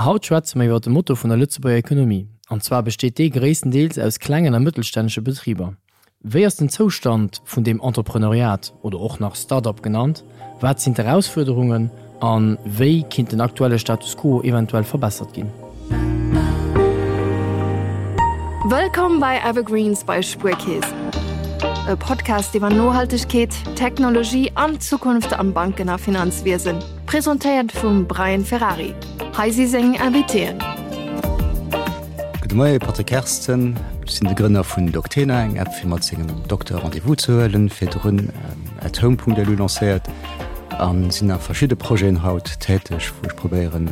Haut schwätze mer iwwer de Motor vun der Lëtzebuerger Ekonomie. An zwar besteet dee gréisstendeels aus klengen a mëttelstännege Betriber. Wéi ass den Zoustand vun deem Entrepreneuriat, oder och nach Start-up genannt? Wat sinn d'Erausfuerderungen a wéi kinnt den aktuelle Status quo eventuell verbessert ginn? Wëllkomm bei Evergreens bei Spuerkeess, e Podcast iwwer Nohaltegkeet, Technologie an d'Zukunft am Banken a Finanzwiesen. Presentéiert vum Brian Ferrari. Hei si seng Invitéen. Gudde Moie, Patrick Kersten. Ech sinn de Grënner vun Doctena, eng App fir mat sengem Dokter Rendez-vous ze huelen. Virdrun athome.lu lancéiert a sinn a verschidde Projeten haut täteg, wou ech probéieren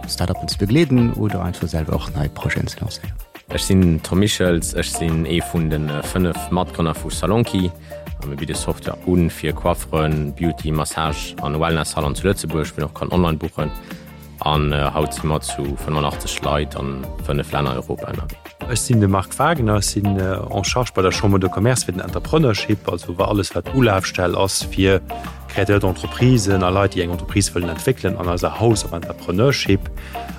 Start-uppen ze begleeden oder einfach selwer och nei Projeten ze lancéieren. Ech sinn Tom Michels, ech sinn ee vun de 5 Matgrënner vu Salonki. A mir bidde Software u fir Coifferen, Beauty, Massage an Wellness Salon zu Lëtzebuerg, wou een och kann online buchen. An haut si mer zu 85 Leit an 5 Länner Europa ënnerwee. Ech sinn de Marc Wagner, ech sinn en charge bei der Chambre de Commerce fir den Entrepreneurship, also alles wat Ulafstell ass fir Créateurs d'entreprisen a Leit, déi eng Entreprise wëllen entwéckelen an eiser House of Entrepreneurship.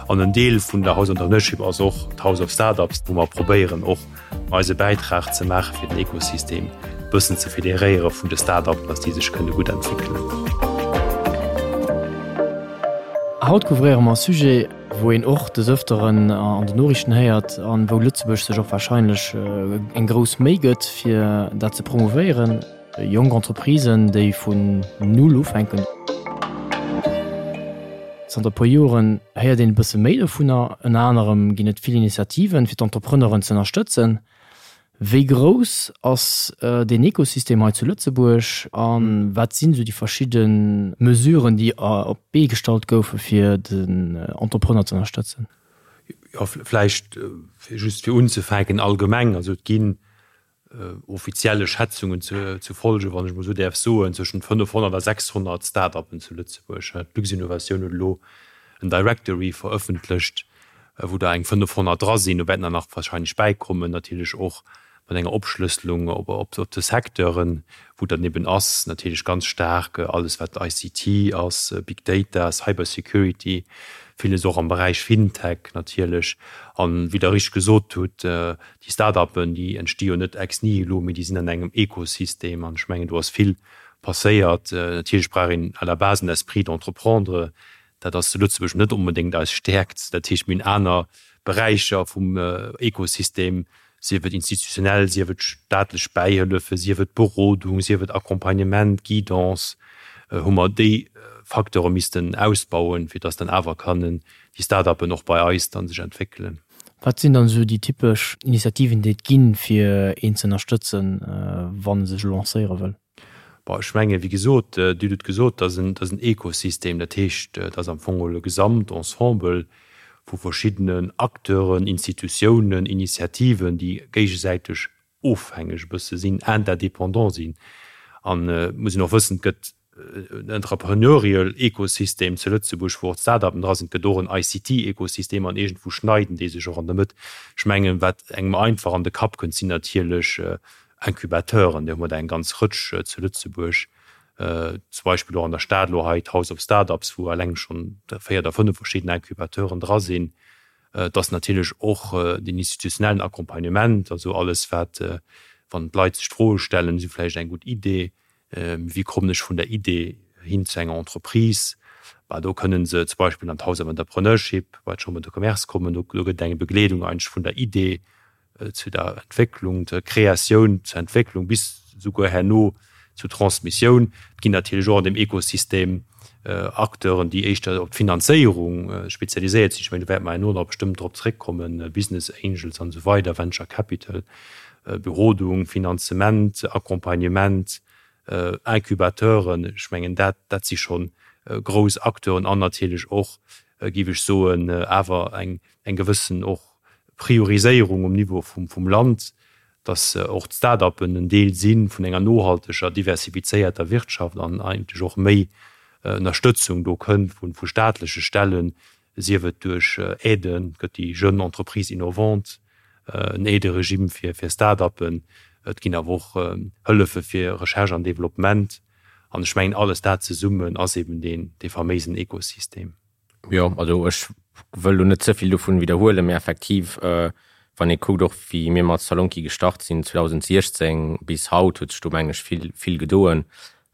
An en Deel vun der House of Entrepreneurship ass och d'House of Startups, wou mer probéieren och eise Bäitrag ze maache fir den Ekosystem e bëssen ze federéiere vun de Start-upen, dass déi sech kënne gutt entwéckelen. Haut couvréiere mer e Sujet, wou een och des Ëfteren an den Noriichten héiert an wou Lëtzebuerg sech och warscheinlech eng grouss Méi gëtt, fir dat ze promouvéieren. Jonk Entreprisen, déi vun Null ufänken. Zanter e puer Joren héiert een e bësse méi dovunner. Ënner anerem ginn et vill Initiativen, fir d'Entrepreneuren ze ënnerstëtzen. Wéi grouss ass deen Ekosystem hei zu Lëtzebuerg a wat sinn esou déi verschidde Mesuren, déi op d'Bee gestallt goufe fir den Entrepreneur ze ënnerstëtzen? Jo, vläicht just fir unzefänken allgemeng, also et ginn offizielle Schätzungen ze folgen, wann ech emol esou däerf soen, zwëschent 500 a 600 Start-uppen zu Lëtzebuerg. D'Luxinnovation huet elo en Directory verëffentlecht, wou der eng 500 dra sinn. Do wäerten der nach wahrscheinlech bäikommen, natierlech och mat enger Opschlësselung op de Secteuren, wou dann eben ass natierlech ganz staark alles wat ICT ass, Big Data, Cybersecurity, villes och am Beräich FinTech natierlech. An, wéi Der richteg gesot hutt, Déi Start-uppen, déi entsti jo net ex nihilo, mee déi sinn an engem Ekosystem. An ech mengen, do ass vill passéiert. Natierlech brauch een à la base en Esprit d'entreprendre. Dat ass zu Lëtzebuerg net onbedéngt eis Stäerkt. Dat heescht, mir hunn aner Beräicher vum Ekosystem, sief et institutionell, sief et staatlech Bäihëllefe, sief et Berodung, sief et Accompagnement, Guidance, hu mer déi Facteure missten ausbauen, fir dass dann awer kënnen déi Start-uppen och bei eis dann sech entwéckelen. Wat sinn dann esou déi typesch Initiativen, déi et ginn, fir een ze ënnerstëtzen, wann e sech lancéiere wëll? Bon, ech mengen, wéi gesot, Dir hutt et gesot, dat ass en Ekosystem. Dat heescht, dat ass am Fong geholl e Gesamtensemble vu verschiddenen Acteuren, Institutiounen, Initiativen, déi géigesäiteg ofhängeg e bësse sinn, interdépendant sinn. An et muss een och wëssen, et gëtt en entrepreneurial Ekosystem zu Lëtzebuerg, wou och d'Start-upen dra sinn, et gëtt och en ICT-Ekosystem an iergendwou schneiden déi sech och an der Mëtt. Ech mengen, wat engem einfach an de Kapp kënnt, sinn natierlech Incubateuren, där hu mer der eng ganz Rëtsch zu Lëtzebuerg, zum Beispill och an der Stad elo hei d'House of Startups, wou eleng schonn 4 oder 5 verschidden Incubateuren dra sinn. Et ass natierlech och den institutionellen Accompagnement, also alles wat, wann d'Leit sech d'Froe stellen, si vläicht eng gutt Idee, wéi kommen ech vun der Idee hin zu enger Entreprise, bah do kënnen se zum Beispill an d'House of Entrepreneurship bei d'Chambre de Commerce kommen, do gëtt et eng Begleedung eigentlech vun der Idee zu der Entwécklung, zur Kreatioun, zur Entwécklung bis souguer herno zur Transmissioun. Et ginn natierlech och an deem Ekosystem Acteuren, déi éischter op d'Finanzéierung spezialiséiert sinn. Ech mengen, do wäerte mer herno nach bestëmmt drop zréckkommen, Business Angels an esou weider, Venture Capital, Berodung, Finanzement, Accompagnement, Incubateuren. Ech mengen, dat, dat si scho grouss Acteuren an natierlech och, géif ech soen, awer eng, eng gewëssen och Prioriséierung um Niveau vum Land, dass och d'Start-uppen en Deel si vun enger nohalteger, diversifizéierter Wirtschaft an eigentlech och méi Ënnerstëtzung do kënnt vu staatleche Stellen, sief et duerch Aiden, et gëtt déi Jeune Entreprise Innovante, en Aideregime fir Start-uppen, et ginn awer och Hëllefe fir Recherche an Développement. An ech mengen, alles dat zesummen ass eben dee faméisen Ekosystem. Jo, also ech wëll lo net ze vill dovun widderhuelen, mee effektiv, wann ee kuckt och wéi mir mat Salonki gestart sinn 2016 bis haut, huet sech do mengen ech vill, vill gedoen.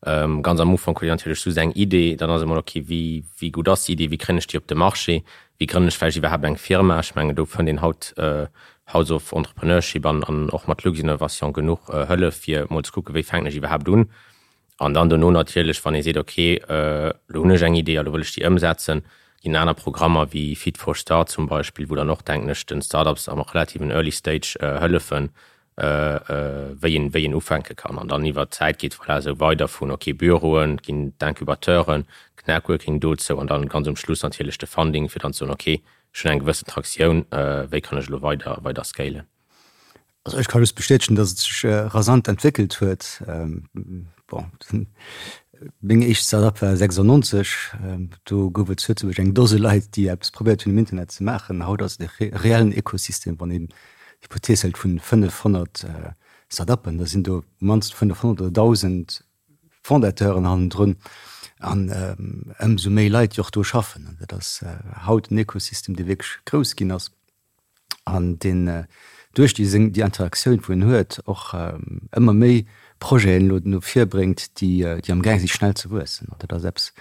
Ganz am Ufank huet een natierlech just eng Idee, dann ass emol ok, wéi, wéi gutt ass déi Idee, wéi kréien ech déi op de Marché, wéi grënnen ech vläicht iwwerhaapt eng Firma. Ech mengen do fënnt een haut House of Entrepreneurship an an och mat Luxinnovation genuch Hëllef fir emol ze kucken, wéi fänken ech iwwerhaapt un. An dann dono natierlech, wann ee seet, ok, elo hunn ech eng Idee a lo wëll ech déi ëmsetzen, ginn aner Programmer wéi Fit for Start zum Beispill, wou dann och, denken ech, den Start-ups am relativen Early Stage hëllefen, wéi een, wéi een ufänke kann. An dann iwwert d'Zäit geet voilà esou weider vun, ok, Büroen, et ginn d'Incubateuren, d'Networking dozou an dann ganz um Schluss natierlech de Funding, fir dann ze soen, ok, ech hunn eng gewëssen Traktioun, wéi kann ech elo weider, weider scalen? Also ech ka just bestätegen, datt et sech rasant entwéckelt huet. Bon, meng éischt Start-up war 96, do gouf et zu Lëtzebuerg eng Dose Leit, déi eppes probéiert hunn um Internet ze maachen. Haut ass et e reellen Ekosystem. Wann een d'Hypothees hëlt vun 500 Start-uppen, da sinn do mannst 500 oder 1.000 Fondateuren hannendrun an ëmsou méi Leit, déi och do schaffen. An dat ass haut en Ekosystem, dee wierklech grouss ginn ass. an deen duerch déi seng déi Interaktioun wou en huet och ëmmer méi Projeten elo no vir bréngt, déi déi am gaang si schnell ze wuessen. An dat ass eppes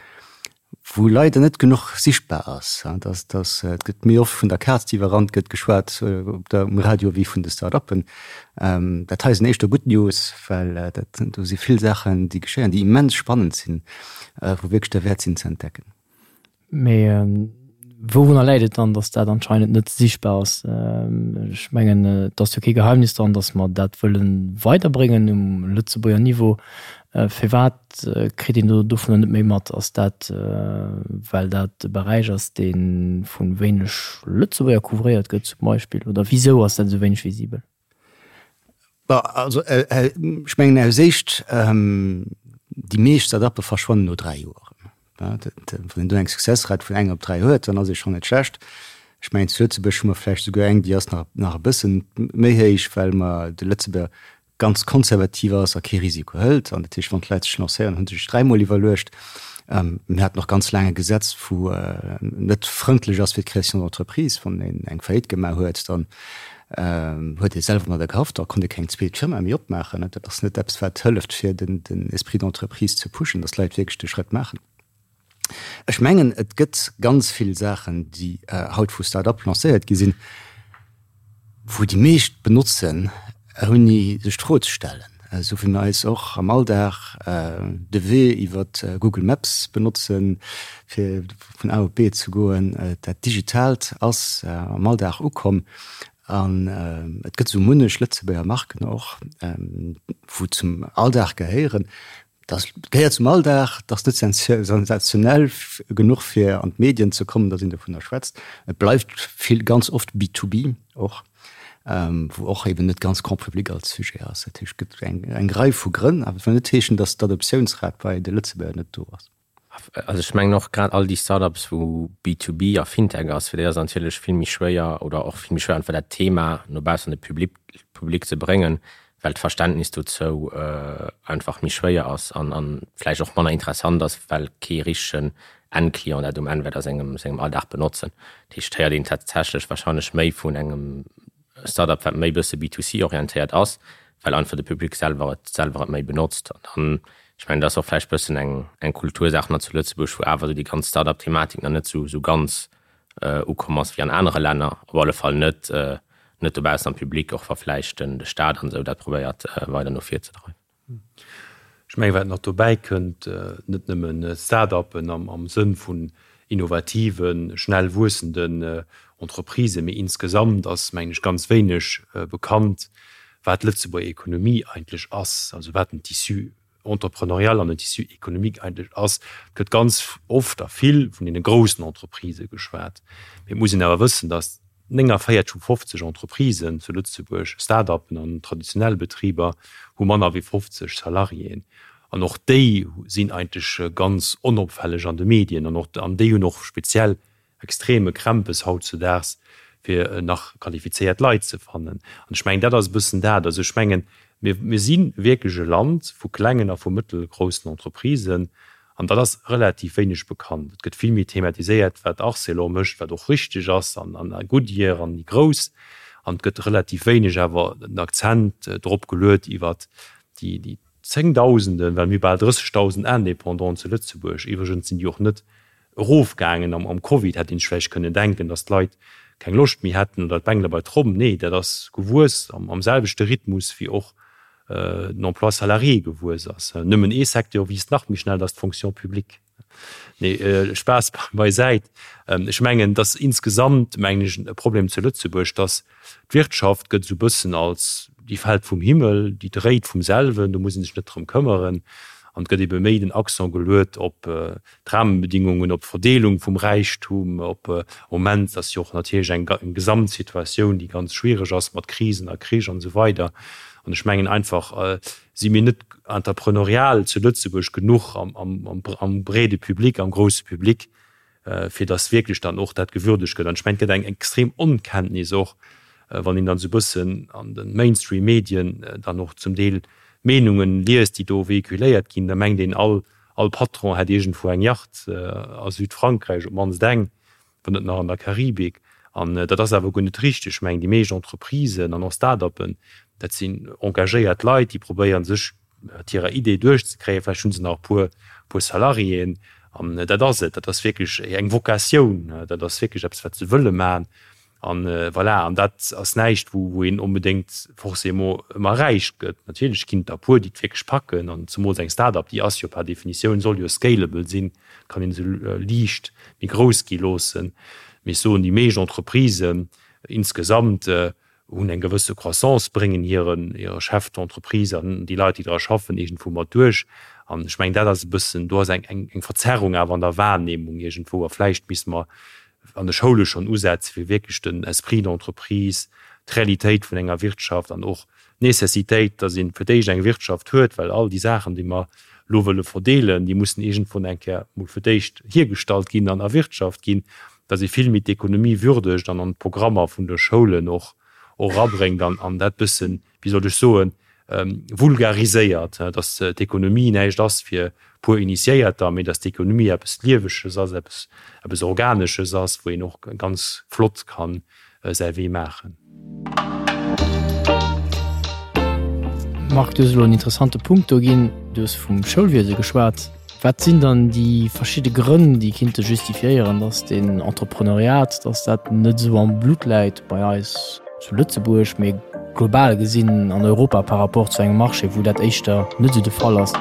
wou leider net genuch sichtbar ass, dass dass et gëtt méi oft vun der Kaz déi iwwerrannt gëtt geschwat op der um Radio wéi vun de Start-uppen. Dat hei sinn éischter gutt News, well dat do si vill Saachen déi geschéien, déi immens spannend sinn, wou wierklech derwäert sinn ze entdecken. Mee wourunner läit et dann, datt dat anscheinend net sichtbar ass? Ech mengen, et ass jo kee Geheimnis dran, datt mer dat wëlle weiderbréngen um Lëtzebuerger Niveau. Firwat kritt een do dovunner net méi mat? Ass dat, well dat e Beräich ass, dee vu wéineg Lëtzebuerger couvréiert gëtt zum Beispill? Oder wisou ass dat esou wéineg visibel? Bon, also ech mengen aus éischt, déi meescht Start-uppe verschwannen no 3 Joer. Wann een do eng Successrate vun enger op 3 huet, dann ass ee schonn net schlecht. Ech mengen zu Lëtzebuerg hu mer vläicht esouguer eng, déi ass nach nach e bëssen méi héich, well mer de Lëtzebuerger ganz konservativ ass a kee Risiko hëlt. An dat heescht, wann d'Leit sech lancéieren, hu se sech dräimol iwwerluecht. Mir haten och ganz laang e Gesetz, wou net frëndlech ass fir d'Création d'entreprise. Wann een eng Faillite gemaach huet, dann huet ee selwer mat der gehaft, da konnt ee keng zweet Firma méi opmaachen. Dat ass net eppes, wat hëlleft, fir den Esprit d'entreprise ze pushen, dass d'Leit wierklech de Schrëtt maachen. Ech mengen, et gëtt ganz vill Saachen, déi haut vu Start-up lancéiert gi sinn, wou déi meescht benotzen, ouni sech d'Fro ze stellen. Esou wéi mir eis och am Alldag de Wee iwwer Google Maps benotzen, fir vun A op B ze goen. Dat Digitaalt ass am Alldag ukomm an et gëtt esou munnech Lëtzebuerger Marken och, wou zum Alldag gehéieren. Dat gehéiert zum Alldag, dat ass net sensationell genuch fir an d'Medien ze kommen, datt een dovunner schwätzt. Et bleift vill, ganz oft B2B och, wou och eben net ganz grand public als Sujet ass. Dat heescht, et gëtt eng Rei vu Grënn, awer et wëll net heeschen, datt d'Adoptiounsrat bei de Lëtzebuerger net do ass. Also ech mengen och grad all déi Startups wou B2B a Fintech ass, fir déi ass et natierlech vill méi schwéier oder och vill méi schwéier einfach dat Thema no baussen an de Public Public ze bréngen, well d'Verständnis dozou einfach méi schwéier ass an an vläicht och manner interessant ass, well kee richtegen Endclient dat um Enn wäert a sengem sengem Alldag benotzen. Dat heescht, héiert een tatsächlech wahrscheinlech méi vun engem Startup wat méi bësse B2C orientéiert ass, well einfach de Public selwer et selwer et méi benotzt. An dann, ech mengen, dat ass och vläicht bëssen eng eng Kultursaach nach zu Lëtzebuerg, wou awer esou déi ganz Startup-Thematik nach net esou esou ganz ukomm ass wéi an anere Länner, op alle Fall net net dobaussen am Public, och wa vläicht den de Staat an esou dat probéiert weider no vir ze dreiwen. Ech mengen, wat nach dobäi kënnt, net nëmmen Start-uppen am Sënn vun innovativen, schnell wuessenden Entreprisen, mee insgesamt ass, mengen ech, ganz wéineg bekannt, wat d'Lëtzebuerger Ekonomie eigentlech ass, also wat den Tissu entrepreneurial an den Tissu économique eigentlech ass. Et gëtt ganz oft a vill vun deene groussen Entreprisë geschwat, mee et muss een awer wëssen, datt 49 vu 50 Entreprisen zu Lëtzebuerg, Start-uppen an traditionell Betriber, hu manner wéi 50 Salariéen. An och déi sinn eigentlech ganz onopfälleg an de Medien. An och an déi hunn och speziell extreme Krämpes hautzudaags, fir nach qualifizéiert Leit ze fannen. An ech mengen, dat ass e bëssen dat. Also ech mengen, mir, mir si wierklech e Land vu klengen a vu mëttelgroussen Entreprisen. An dat ass relativ wéineg bekannt. Et gëtt vill méi thematiséiert, wat Arcelor mécht, wat och richteg ass, an Goodyear an déi Grouss. An et gëtt relativ wéineg awer den Akzent drop geluet iwwert déi Zéngdausenden, well mir hu bal 30.000 Indépendanten zu Lëtzebuerg. Iwwregens sinn déi och net erofgaangen am Covid. Hätt een sech vläicht kënnen denken, datt d'Leit keng Loscht méi hätten oder d'Bengele bei d'Tromm. Nee, dat ass gewuess am selwechte Rhythmus wéi och den Emploi salarié gewuess ass. Nëmmen ee Secteur wiisst nach méi schnell, dat ass d'Fonction publique. Nee, Spaass beisäit. Ech mengen, dass insgesamt, mengen ech, e Problem zu Lëtzebuerg, dass d'Wirtschaft gëtt esou e bëssen als, déi fält vum Himmel, déi dréit vum selwen, do muss ee sech net drëm këmmeren. An et gëtt ebe méi den Accent geluet op d'Rahmenbedingungen, op d'Verdeelung vum Räichtum, op am Moment ass jo och natierlech eng Gesamtsituatioun, déi ganz schwiereg ass mat Krisen a Krich an esou weider. An ech mengen einfach, si mir net entrepreneurial zu Lëtzebuerg genuch am breede Public, am grousse Public, fir datt wierklech dann och dat gewürdegt gëtt. An ech mengen, et gëtt eng extrem Onkenntnis och, wann een dann esou e bëssen an de Mainstream-Medien dann och zum Deel Meenungen liest, déi do véhiculéiert ginn, da mengt een, all All Patron hätt iergendwou eng Yacht a Südfrankräich, op d'mannst eng, wann net nach an der Karibik. An dat ass awer guer net richteg. Ech mengen, déi meescht Entreprisen an och Start-uppen, dat sinn engagéiert Leit, déi probéieren, sech mat hirer Idee duerchzekréien. Vläicht hu se nach e puer, puer Salariéen. An dat ass et. Dat ass wierklech eng Vocatioun. Dat ass wierklech eppes, wat se wëlle maachen. An voilà, an dat ass näischt, wou wou een onbedéngt forcément ëmmer räich gëtt. Natierlech ginn et der e puer, déi et wierklech packen, an zemools eng Start-up, déi ass jo par Definitioun, soll jo scalable sinn, kann een se liicht méi grouss gi loossen. Mee ech soen, déi meescht Entreprisen insgesamt hunn eng gewësse Croissance, bréngen hiren hire Chef d'entreprise an déi Leit, déi dra schaffen, iergendwou mat duerch. An ech mengen, dat ass e bëssen, do ass eng eng Verzerrung awer an der Wahrnehmung iergendwou. A vläicht misste mer an de Schoule schonn usetze fir wierklech den Esprit d'entreprise, d'Realitéit vun enger Wirtschaft an och d'Nécessitéit, datt ee fir d'éischt eng Wirtschaft huet, well all déi Saachen, déi mer elo wëlle verdeelen, déi mussen iergendwou eng Kéier mol fir d'éischt hiergestallt ginn an erwirtschaft ginn, datt ee vill méi d'Ekonomie würdegt an an d'Programmer vun de Schoulen och erabréngt an dat bëssen, wéi soll ech soen, vulgariséiert, dass d'Ekonomie näischt ass fir puer Initiéierter, mee dass d'Ekonomie eppes Lieweges ass, eppes, eppes Organesches ass, wou een och ganz flott ka säi Wee maachen. Marc, du hues elo en interessante Punkt do ginn. Du hues vum Schoulwiese geschwat. Wat sinn dann déi verschidde Grënn, déi kinnte justifiéieren, dass den Entrepreneuriat, dass dat net esou am Blutt läit bei eis zu Lëtzebuerg, mee global gesinn an Europa par rapport zu engem Marché, wou dat éischter net esou de Fall ass?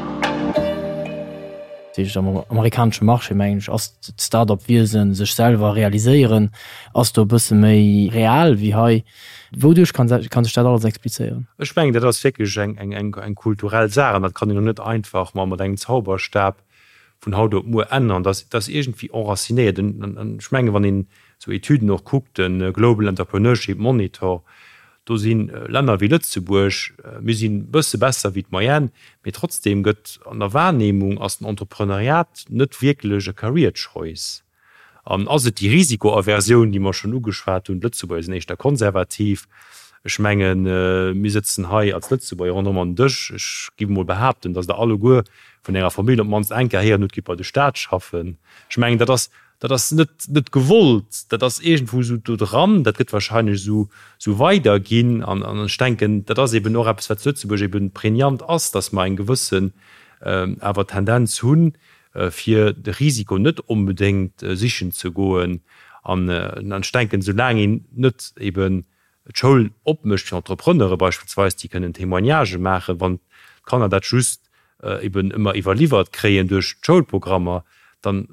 Dat heescht, am amerikanesche Marché, mengen ech, ass d'Start-up-Wiesen, sech selwer realiséieren, ass do e bësse méi real wéi hei. Wouduerch kann sech dat alles explizéieren? Ech mengen, dat ass wierklech eng kulturell Saach an dat kann een och net einfach mat engem Zauberstab vun haut op muer änneren. Dat ass iergendwéi enracinéiert. An ech mengen, wann een esou Etüden och kuckt, de Global Entrepreneurship Monitor, do si Länner wéi Lëtzebuerg, mir sinn e bësse besser wéi d'Moyenne, mee trotzdeem gëtt an der Wahrnehmung ass den Entrepreneuriat net wierklech e Career Choice. An ass et déi Risikoaversioun, déi mer schonn ugeschwat hunn? D'Lëtzebuerger sinn éischter konservativ. Ech mengen, mir sëtzen hei als Lëtzebuerger ronderëm an den Dësch. Ech géif emol behaapten, datt Der alleguer vun Ärer Famill op d'mannst eng Kéier héieren hutt, Gitt bei de Staat schaffen. Ech mengen, dat ass, dat ass net, net gewollt, dat ass iergendwou esou do dran. Dat gëtt wahrscheinlech esou, esou weiderginn. An ech denken, dat ass eben och eppes, wat zu Lëtzebuerg eben prégnant ass, datt mer eng gewëssen awer Tendenz hunn, fir de Risiko net onbedéngt sichen ze goen. An ech denken, soulaang een net eben d'Schoul opmécht fir Entrepreneure beispillsweis, déi kënnen Témoignagë maachen, wann d'Kanner dat just eben ëmmer iwwerliwwert kréien duerch d'Schoulprogrammer, dann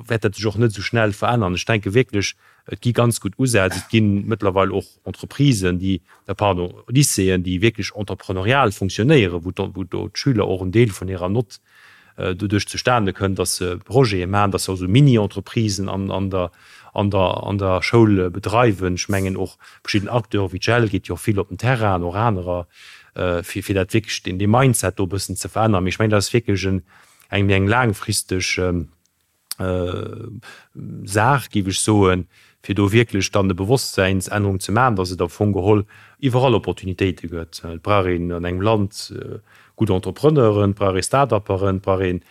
wäert dat sech och net esou schnell verännern. Ech denke wierklech, et gi ganz gutt Usätz. Et gi mëttlerweil och Entreprisen, déi, pardon, Lycéeën, déi wierklech entrepreneurial funktionéieren, wou do d'Schüler och en Deel vun hirer Nott doduerch zustane kënnt, dass se Projete maachen, dass se och esou Mini-Entreprisen an der, an der, an der Schoul bedreiwen. Ech mengen och verschidden Acteure wéi d'JEL geet jo och vill op den Terrain an och anerer, fir, fir dat wierklech, deen, dee Mindset do e bëssen ze verännern. Mee ech mengen, dat ass wierklech en, eng méi eng laangfristeg Saach, géif ech soen, fir do wierklech dann e Bewosstsäinsännerung ze maachen, dass et am Fong geholl iwwerall Opportunitéite gëtt. Et brauch een an engem Land. gutt Entrepreneuren, et brauch ee Start-upperen, et brauch ee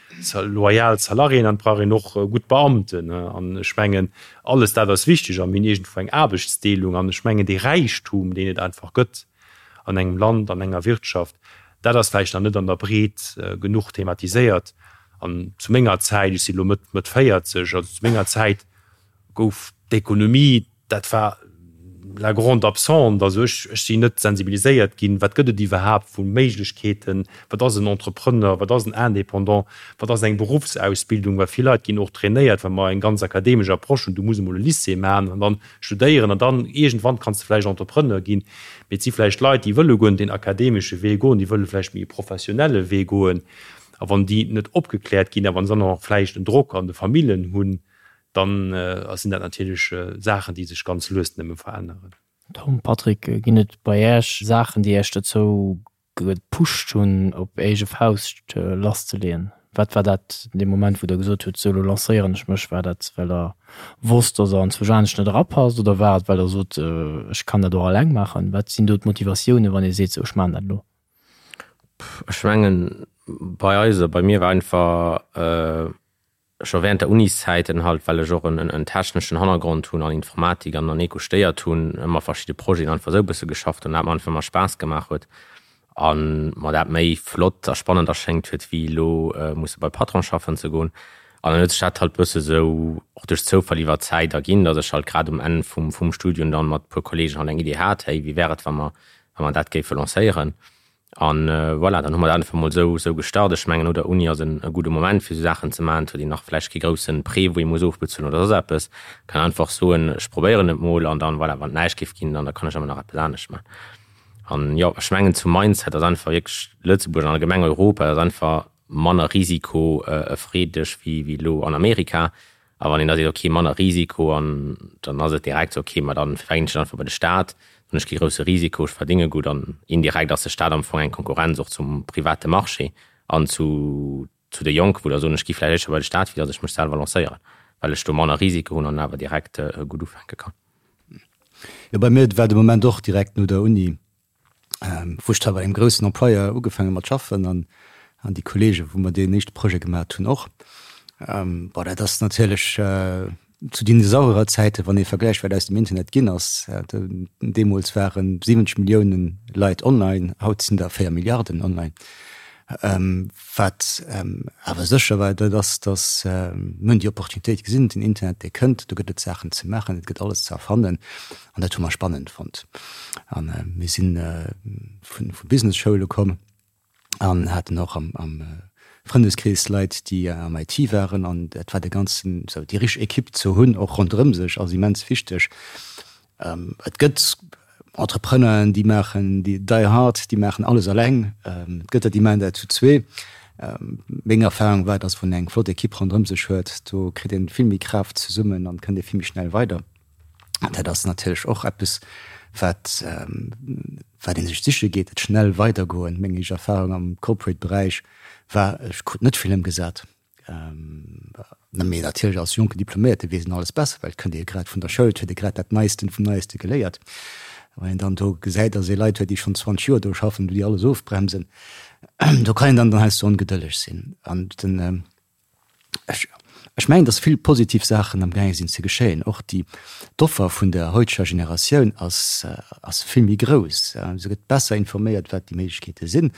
loyal Salariéen an et brauch een och gutt Beamten. An ech mengen, alles dat ass wichteg a mir hunn iergendwou eng Aarbechtsdeelung. An ech mengen, dee Räichtum, deen et einfach gëtt an engem Land, an enger Wirtschaft, dat ass vläicht nach net an der Breet genuch thematiséiert. An zu menger Zäit, ech si elo Mëtt, Mëtt 40, also zu menger Zäit gouf d'Ekonomie, Dat war la grande absente. Also ech, ech sinn net sensibiliséiert ginn, wat gëtt et iwwerhaapt vu Méiglechkeeten, wat ass en Entrepreneur, wat ass en Indépendant, wat ass eng Beruffsausbildung, well vill Leit ginn och trainéiert, wa mer eng ganz akademesch Approche hunn, du muss emol e Lycée maachen an dann studéieren an dann iergendwann kanns de vläicht Entrepreneur ginn. Mee et si vläicht Leit, déi wëlle guer net deen akademesche Wee goen, déi wëlle vläicht méi e professionelle Wee goen. A wann déi net opgekläert ginn a wann se dann och nach vläicht en Drock an de Famillen hunn, dann sinn dat natierlech Saachen, déi sech ganz lues nëmme veränneren. Tom, Patrick, ginn et bei Äech Saachen, déi Äech dozou gepusht hunn, op eege Fauscht lasszeleeën? Wat war dat dee Moment, wou Der gesot hutt, sou elo lancéieren ech mech? War dat, well Der wosst, datt Der anzwousch anescht net erapasst oder war et, well Der sot, ech kann dat och eleng maachen? Wat sinn do d'Motivatiounen, wann ee seet, sou ech maachen dat elo? Ech mengen, bei eis oder bei mir war einfach, Scho während der Uniszäiten halt, well ech och en techneschen Hannergrond hunn an Informatik an an Eco stéiert hunn, ëmmer verschidde Projeten einfach esou e bësse geschafft hunn, dat mer einfach ëmmer Spaass gemaach huet a mer dat méi flott a spannend erschéngt huet wéi elo musse bei Patron schaffen ze goen. An dann huet sech dat halt bësse sou och duerch Zoufall iwwer d'Zäit erginn, datt ech halt grad um Enn vum vum Studium dann mat puer Kollegen halt eng Idee hat, hey wéi wär et wa mer wa mer dat géife lancéieren. An voilà, dann hu mer dat einfach mol esou esou gestart. Ech mengen, no der Uni ass en e gudde Moment, fir esou Saachen ze maachen. Et huet een nach vläicht kee grousse Prêt, wou ee muss ofbezuelen oder soss eppes. Kann einfach soen, ech probéieren et mol an dann, voilà, wann et näischt géif ginn, dann da kann ech ëmmer nach eppes anescht maachen. An jo, ech mengen zum Mindset ass einfach wierklech Lëtzebuerg an allgemeng Europa ass einfach manner risikofreedeg wéi wéi elo an Amerika. A wann een da seet, ok, manner Risiko, an dann ass et direkt esou, ok, ma dann verginn ech et einfach bei de Staat, dann hunn ech kee grousse Risiko, ech verdénge gutt an indirekt ass de Staat am Fong eng Konkurrenz och zum private Marché an zu zu de Jonken, wou der soen, ech gi vläicht éischter bei de Staat, wéi datt ech mech selwer lancéieren, well ech do manner Risiko hunn an awer direkt gutt ufänke kann. Jo, bei mir war de Moment och direkt no der Uni, wou ech da bei engem groussen Employeur ugefaange mat schaffen an an déi Kollege wou mer deen éischte Projet gemat hunn och. Bon dat ass natierlech zu Dinosaurierzäiten, wann ee vergläicht wat aus dem Internet ginn ass. Deemools ware 70 Millioune Leit online, haut sinn der 4 Milliarden online. Wat awer sécher war, dat ass, datt mir hunn déi Opportunitéit gesinn, den Internet dee kënnt, do gëtt et Saachen ze maachen, et gëtt alles ze erfannen an dat hu mer spannend fonnt. A mir si vu Business-Schoule komm an haten och am Frëndeskrees Leit, déi am IT waren an dat war de ganzen, esou déi richteg Ekipp ze hunn och ronderëm sech ass immens wichteg. Et gëtt Entrepreneuren, déi maachen, déi die hard, déi maachen alles eleng. Et gëtt der, déi maachen dat zu zwee. Meng Erfahrung war, dass wann een eng flott Ekipp ronderëm sech huet, do kritt een vill méi Kraaft zesummen an kënnt ee vill méi schnell weider. An dat ass natierlech och eppes, wat, wat ee sech siche geet, dat schnell weidergoen. Meng éischt Erfahrung am Corporate Beräich war, ech krut net vill ëmgesat. Mee natierlech als jonken Diploméierte weess een alles besser, well et kënnt ee grad vun der Schoul, et huet ee grad dat Neisten vum Neiste geléiert. Wann een dann do gesäit, datt ee Leit huet, déi schonn 20 Joer do schaffen, wou déi alles ofbremsen, do kann een dann dann heiansdo ongedëlleg sinn. An den, ech, ech mengen, datt vill positiv Saachen amgaange sinn ze geschéien. Och déi, d'Offer vun der heuteger Generatioun ass, ass vill méi grouss. Se gëtt besser informéiert, wat déi Méiglechkeete sinn.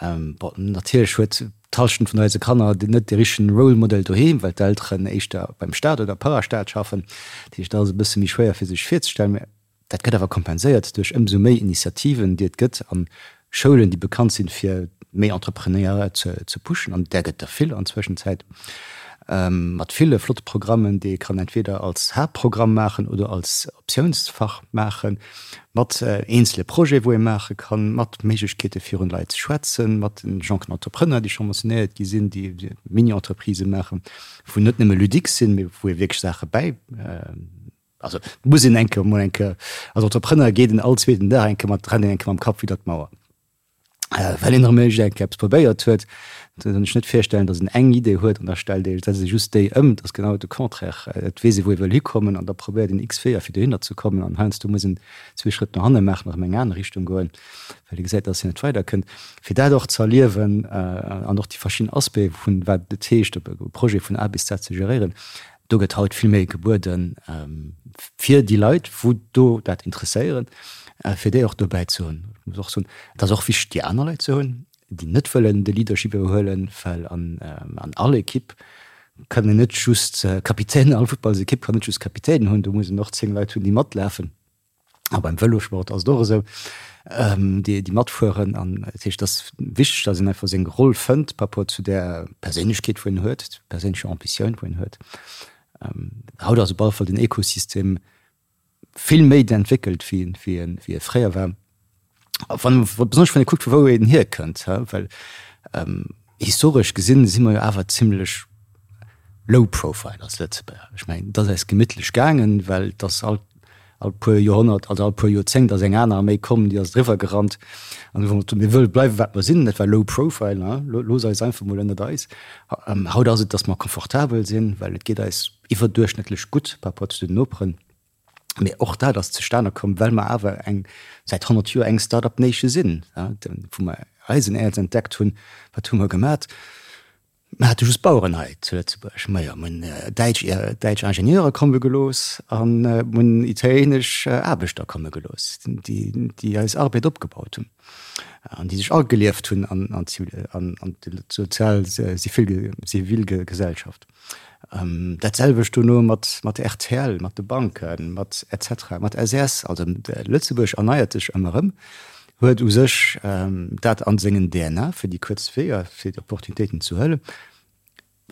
Bon, natierlech huet d'Hallschent vun eise Kanner net de richtegen Role Model doheem, well d'Elteren éischter beim Staat oder Parastaat schaffen. Dat heescht, dat ass e bësse méi schwéier fir sech virzestellen. Mä dat gëtt awer kompenséiert duerch ëmsou méi Initiativen, déi et gëtt a Schoulen, déi bekannt sinn, fir méi Entrepreneuriat ze pushen. An där gëtt der vill an Zwëschenzäit, mat ville flotte Programmen, déi ee kann entweder als Haaptprogramm maachen oder als Optiounsfach maachen. Mat eenzele Projete wou ee maache kann, mat Méiglechkeete virun Leit ze schwätzen, mat den jonken Entrepreneur, déi scho mentionéiert gi sinn, déi Mini-Entreprisë maachen, wou net nëmme ludique sinn, mee wou ee wierklech Saache bäi, also et muss een eng Kéier emol eng Kéier, als Entrepreneur geet een all zweeten Dag eng Kéier mat, rennt een eng Kéier mam Kapp widder d'Mauer. Well een erëm iergend eppes probéiert huet. Da kann ech net virstellen, datt een eng Idee huet an da stellt ee, setzt ee just déi ëm. Et ass genau de Contraire. Et weess ee wou ee wëll hikommen an da probéiert een x Weeër fir dohinner ze kommen an heiansdo muss een zwee Schrëtt no hanne maachen, erëm eng aner Richtung goen, well ee gesäit, datt een net weiderkënnt. Fir dat och ze erliewen an och déi verschidden Aspecte vun wat et heescht, e Projet vun A bis Z ze geréieren, Do gëtt haut vill méi gebueden, fir déi Leit, wou do dat interesséieren, fir déi och dobäi ze hunn. Ech muss och soen, et ass och wichteg, déi aner Leit ze hunn, déi net wëllen de Leadership iwwerhuelen, well an all Ekipp kann een net just Kapitänen, all Futtballsekipp kann net just Kapitänen hunn, do muss een och 10 Leit hunn, déi matlafen. A beim Vëlosport ass et och esou, déi déi matfueren. An dat heescht, et ass wichteg, datt een einfach seng Roll fënnt par rapport zu där Perséinlechkeet, wou een huet, perséinlecher Ambitioun, wou een huet. Haut ass op alle Fall den Ekosystem vill méi entwéckelt, wéi wéi wéi e fréier war. Wann, besonnesch wann ee kuckt, vu wou een hierkënnt, well historesch gesinn si mer jo awer zimlech low profile als Lëtzebuerger. Ech mengen, et ass eis gemittlech gaangen, well et ass all, all puer Joerhonnert, also all puer Joerzéngt ass eng aner Arméi komm, déi ass driwwer gerannt an hu gesot, mir wëlle bleiwe wat mer sinn. Dat war low profile, looss eis einfach mol ënnert eis. Haut ass et, datt mer confortabel sinn, well et geet eis iwwerduerchschnëttlech gutt par rapport zu den Noperen. Mee och dat ass zustane komm, well mer awer eng, säit 100 Joer eng Start-up Nation sinn. Wou mer Eisenäerz entdeckt hunn, wat hu mer gemat? Mer hate just Baueren hei zu Lëtzebuerg. Majo, mer hunn däitsch, däitsch Ingenieure komme gelooss a mer hunn italienesch Aarbechter komme gelooss, déi, déi eis Arbed opgebaut hunn an déi sech agelieft hunn an, an an d'sozial Zivilgesellschaft. Dat selwecht dono mat, mat rtl, mat de Banken, mat et cetera, mat SAS. Also Lëtzebuerg erneiert sech ëmmer erëm, huet u sech dat a sengen DNA, fir déi kuerz Weeër, fir déi Opportunitéiten ze huelen.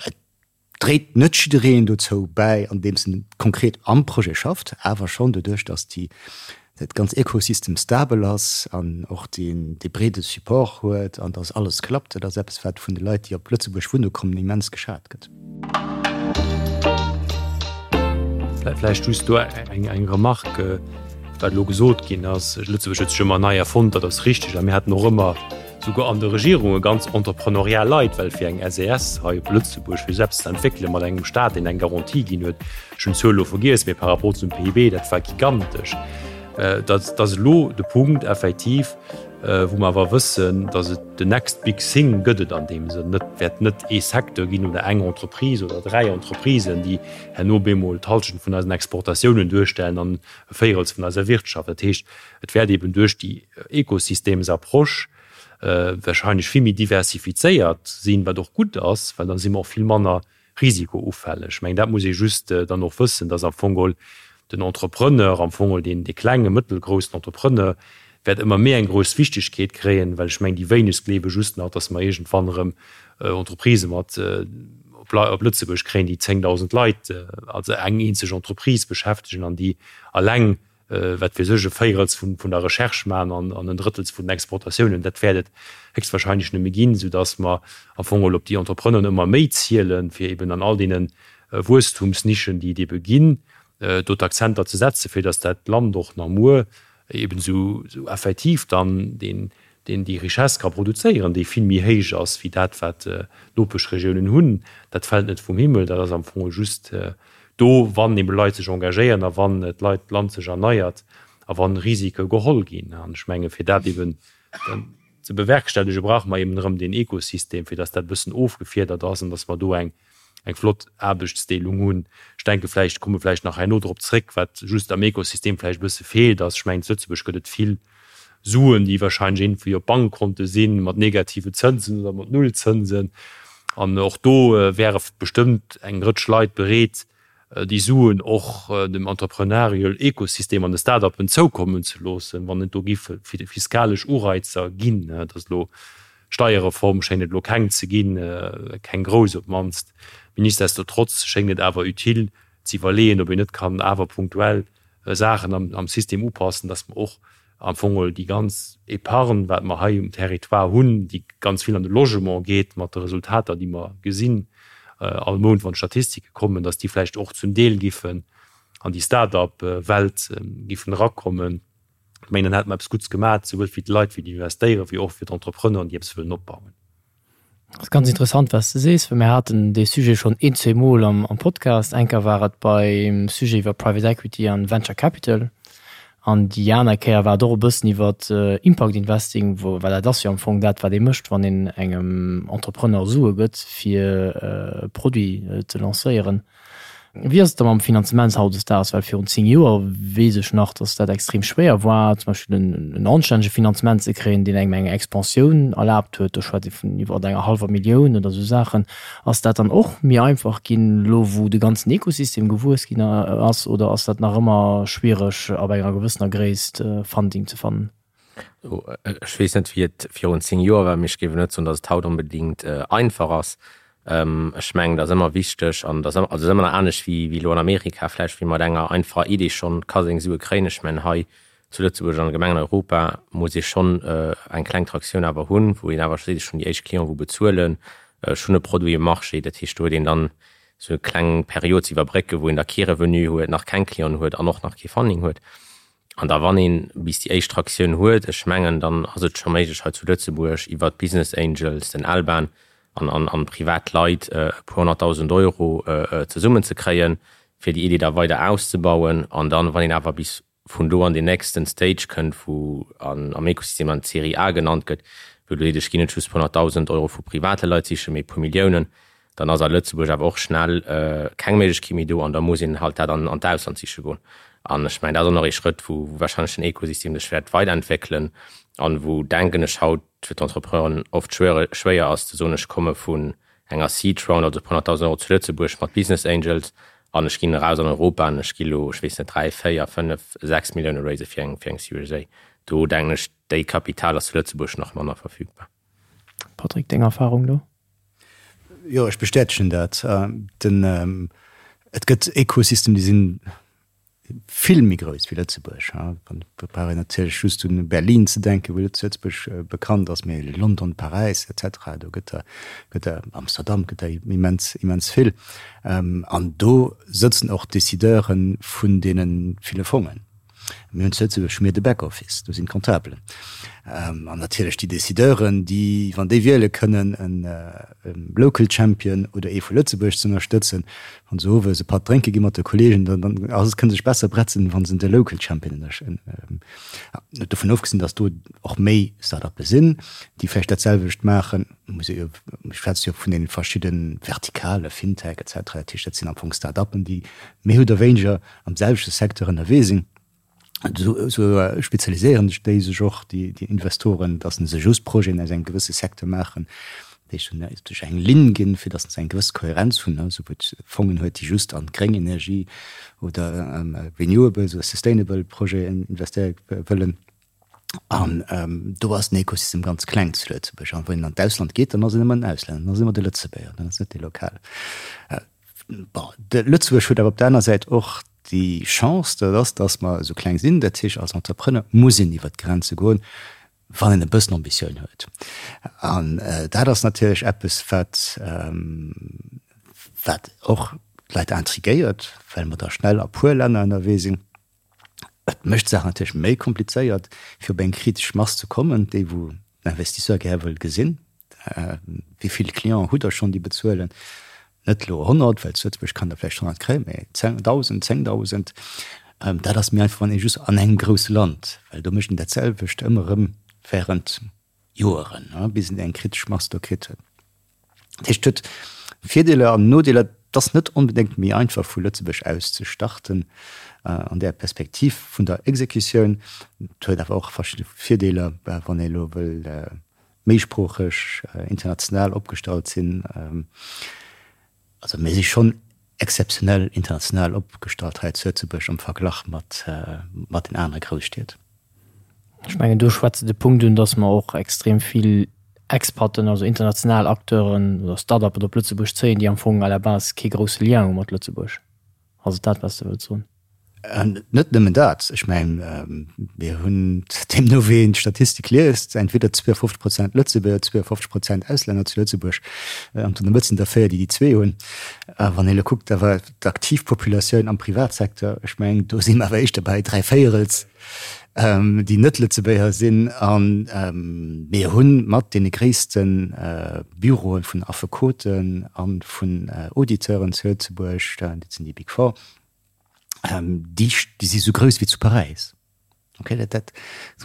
Et dréit net jiddereen dozou bäi, andeems en konkret am Projet schafft, awer schonn doduerch, datt déi dat ganz Ecosystem stabel ass an och dee breede Support huet an dass alles klappt, dat ass eppes, wat vun de Leit, déi op Lëtzebuerg wunne kommen, immens geschat gëtt. Vläicht just do eng Remarque, wat elo gesot ginn ass, Lëtzebuerg huet sech ëmmer nei erfonnt, dat ass richtig. A mir haten och ëmmer souguer an de Regierunge ganz entrepreneurial Leit, well fir eng SES hei op Lëtzebuerg, fir se eppes ze entwéckelen mat engem Stat, deen eng Garantie ginn huet, Ech hunn d'Zuel elo vergiess, mee par rapport zum PIB, dat war gigantesch. Dat ass elo de Punkt effektiv, wou mer awer wëssen, datt et the next big thing gëtt et an deem Sënn net, wäert net ee Secteur ginn oder eng Entreprise oder dräi Entreprisen, déi herno bemol d'Hallschent vun eisen Exportatiounen duerstellen an e Véirels vun eiser Wirtschaft. Dat heescht, et wäert eeben duerch déi Ekosystemsapproche wahrscheinlech vill méi diversifizéiert sinn, wat och gutt ass, well da si mer och vill manner risikoufälleg. Ech mengen, dat muss ee just dann och wëssen, dass am Fong geholl den Entrepreneur, am Fong geholl deen, dee klenge, mëttelgroussen Entrepreneur wäert ëmmer méi eng grouss Wichtigkeet kréien, well ech mengen, déi wéinegst gleewe just nach, dass mer iergendwann erëm Entreprisë mat op Lëtzebuerg kréien, déi 10.000 Leit, also eng eenzeg Entreprise beschäftegen an déi alleng wat weess ech, e Véirels vun der Recherche maachen an en Drëttels vun den Exportatiounen, dat wäert et héchstwahrscheinlech nëmme ginn, soudass mer am Fong geholl op déi Entrepreneuren ëmmer méi zielen, fir eben an all deene Wuesstumsnischen, déi et ebe ginn, do d'Akzenter ze setzen, fir dass dat Land och nach muer eben esou effektiv dann deen, déi Richesse ka produzéieren, déi vill méi héich ass wéi dat, wat d'Nopeschregiounen hunn. Dat fält net vum Himmel, dat ass am Fong just do, wann ebe Leit sech engagéieren a wann d'Leit, d'Land sech erneiert a wann Risike geholl ginn. An ech menge fir dat eben ze bewerkstellige brauche mer eben erëm deen Ekosystem, fir datt dat e bëssen ofgefiedert ass an datt mer do eng eng flott Aarbechtsdeelung hunn. Ech denke vläicht, komme vläicht nach herno drop zréck, wat just am Ekosystem vläicht e bësse feelt, ass, ech mengen, zu Lëtzebuerg gëtt et vill Suen, déi wahrscheinlech iergendwéi op Bankkonte sinn, mat negative Zënsen oder mat Nullzënsen. An och do wäre bestëmmt eng Rëtsch Leit bereet, déi Suen och dem entrepreneurial Ekosystem an de Start-uppen zoukommen ze loossen, wann et do géife fiskalesch Ureizer ginn. Et ass elo Steierreform schéngt et elo keng ze ginn, keng grouss op d'mannst. Mee nichtsdestotrotz schéngt et awer utile ze iwwerleeën, ob een net kann awer punktuell Saachen am System upassen, dass mer och am Fong geholl déi ganz Épargne, wat mer hei um Territoire hunn, déi ganz vill an de Logement geet, mat de Resultater, déi mer gesinn all Mount, wann d'Statistike kommen, dass déi vläicht och zum Deel giffen an déi Start-up-Welt giffen erakommen. Ech mengen, dann hätte mer eppes Gutts gemaach, souwuel fir d'Leit, fir déi investéieren, wéi och fir d'Entrepreneuren, déi eppes wëllen opbauen. Dat ass ganz interessant, wat s de sees, well mir haten dee Sujet schonn een, zweemol am Podcast. Eng Kéier war et beim Sujet iwwer Private Equity an Venture Capital an déi aner Kéier war et och e bëssen iwwer Impact Investing, wou, well dat ass jo am Fong dat, wat ee mécht, wann een engem Entrepreneur Sue gëtt, fir e Produit ze lancéieren. Wéi ass et da mam Finanzement hautdesdaags? Well virun 10 Joer weess ech nach, datt dat extrem schwéier war, zum Beispill en anstännege Finanzement ze kréien, deen engem eng Expansioun erlaabt huet. Do schwätzt ee vun iwwer enger hallwer Millioun oder esou Saachen. Ass dat dann och méi einfach ginn, elo wou de ganzen Ekosystem gewuess ginn ass, oder ass dat nach ëmmer schwiereg, ab enger gewëssener Gréisst Funding ze fannen? Ech weess net, wéi et virun 10 Joer war, mee ech géif net soen, datt et haut onbedéngt einfach ass. Ech mengen, et ass ëmmer wichteg an et ass ëmmer, also et ass ëmmer nach anescht wéi wéi elo an Amerika vläicht, wéi mat enger einfacher Idee schonn ka seng Sue kréien. Ech mengen, hei zu Lëtzebuerg an allgemeng an Europa muss ee schonn eng kleng Traktioun awer hunn, wou een awer seet, ech hunn déi éischt Clienten, wou bezuelen, ech hunn e Produit um Marché. Dat heescht, do huet een dann esou eng kleng Period ze iwwerbrécken, wou een da kee Revenu huet, nach keng Clienten huet an och nach kee Funding huet. An da wann een bis déi éischt Traktioun huet, ech mengen, dann ass et scho méiglech hei zu Lëtzebuerg iwwert d'Business Angels, den Alban an an privat Leit e puer 100.000 Euro zesummen ze kréien, fir déi Idee da weider auszebauen. An dann, wann een awer bis vun do an deen nächsten Stage kënnt, wou an am Ekosystem dann d'Serie A genannt gëtt, wou du seet, ech ginn net just puer 100.000 Euro vu private Leit sichen, mee e puer Milliounen, dann ass a Lëtzebuerg awer och schnell keng Méiglechkeet méi do an da muss een halt dat an d'Ausland siche goen. An ech mengen, dat ass och nach ee Schrëtt, wou wahrscheinlech den Ekosystem sech wäert weiderentwéckelen an wou, denken ech, haut fir d'Entrepreneuren oft schwéier ass ze soen, ech komme vun enger Seed Round, also e puer 100.000 Euro zu Lëtzebuerg mat Business Angels an ech ginn eraus an Europa an ech gi lo, ech weess net, 3, 4, 5, 6 Millioune raise fir eng Series A. Do denken ech, déi Kapital ass zu Lëtzebuerg nach manner verfügbar. Patrick, deng Erfahrung do? Jo, ech bestätegen dat. Den, et gëtt Ekosystem, déi sinn vill méi grouss wéi Lëtzebuerg. Da brauch een natierlech just un Berlin ze denken, wou Lëtzebuerg bekannt ass, mee London, Paräis et cetera, do gëtt der, gëtt der, Amsterdam gëtt der immens, immens vill. An do sëtzen och d'Decideure vun deene ville Fongen. Mir hunn zu Lëtzebuerg hu mir de Back-Office, do sinn d'Comptabelen. An natierlech déi Decideuren, déi, wann déi wiele kënnen, e Local Champion oder ee vu Lëtzebuerg ze ënnerstëtzen, wann se owes e Patt drénke gi mat de Kollegen, dann dann ass et, kënne sech besser bretzen, wa se de Local Champion ënnerstëtzen. Dovun ofgesinn, datt do och méi Start-uppe sinn, déi vläicht dat selwecht maachen, muss ee jo, ech schwätze jo vun deene verschidde Vertikale, Fintech et cetera, dat heescht, dat sinn am Fong Start-uppen, déi méi oder wéineger am selwechte Secteur ënnerwee sinn, esou spezialiséieren sech déi sech och, déi Investoren, datt se just Projeten aus engem gewësse Secteur maachen, déi sech eng Linn ginn, fir datt se eng gewëss Kohärenz hunn, esou wou et Fongen huet, déi just an gréng Energie oder Renewables oder sustainable Projeten investéiere wëllen. An do ass den Ekosystem ganz kleng zu Lëtzebuerg. An wann een an d'Ausland geet, dann ass een ëmmer en Auslänner, dann ass ëmmer de Lëtzebuerger, dann ass net dee Lokale. Bon, de Lëtzebuerg huet awer op der aner Säit och déi Chance, dat ass, datt mer esou kleng sinn. Dat heescht, als Entrepreneur muss een iwwert d'Grenze goen, wann een e bëssen Ambitioun huet. An dat ass natierlech eppes, wat, wat och d'Leit intriguéiert, well mer da schnell a puer Länner ënnerwee sinn. Et mécht d'Saach natierlech méi komplizéiert, fir op eng kritesch Mass ze kommen, déi wou den Investisseur gär wëll gesinn. Wéi vill Clienten hutt Der schonn, déi bezuelen? Net elo 100, well zu Lëtzebuerg kann der vläicht 100 kréien, mä 1.000, 10.000. Dat ass méi einfach, wann ee just an engem grousse Land, well do mécht een dat selwecht ëmmer erëm während Joeren, bis een eng kritesch Mass do kritt huet. Dat heescht, et huet Virdeeler an Nodeeler. Et ass net onbedéngt méi einfach vu Lëtzebuerg aus ze starten an där Perspektiv vun der Exekutioun. Et huet awer och verschidde Virdeeler, wann ee elo wëll méisproocheg, international opgestallt sinn. Also mir si schonn exzeptionell international opgestallt hei zu Lëtzebuerg am Verglach mat den anere Grousstied. Ech mengen, do schwätze de Punkt un, datt mer och extrem vill Expaten, also international Acteuren oder Start-uppen op Lëtzebuerg zéien, déi am Fong à la base kee grousse Lien hu mat Lëtzebuerg. Ass et dat, wat s de wëlls soen? Net nëmmen dat. Ech mengen, mir hunn, deemno wéi een d'Statistik liest, entweder 52 Prozent Lëtzebuerger, 52 Prozent Auslänner zu Lëtzebuerg. An an der Mëtt sinn der véier, déi déi zwee hunn. Wann een elo kuckt awer d'aktiv Populatioun am Privatsecteur, ech mengen, do si mer awer éischter bei dräivéierels. déi net Lëtzebuerger sinn. A mir hu mat deene gréisste Büroe vun Affekoten a vun Auditeuren zu Lëtzebuerg, dat sinn déi Big Four, déi si sou grouss wéi zu Paräis. Ok, dat, dat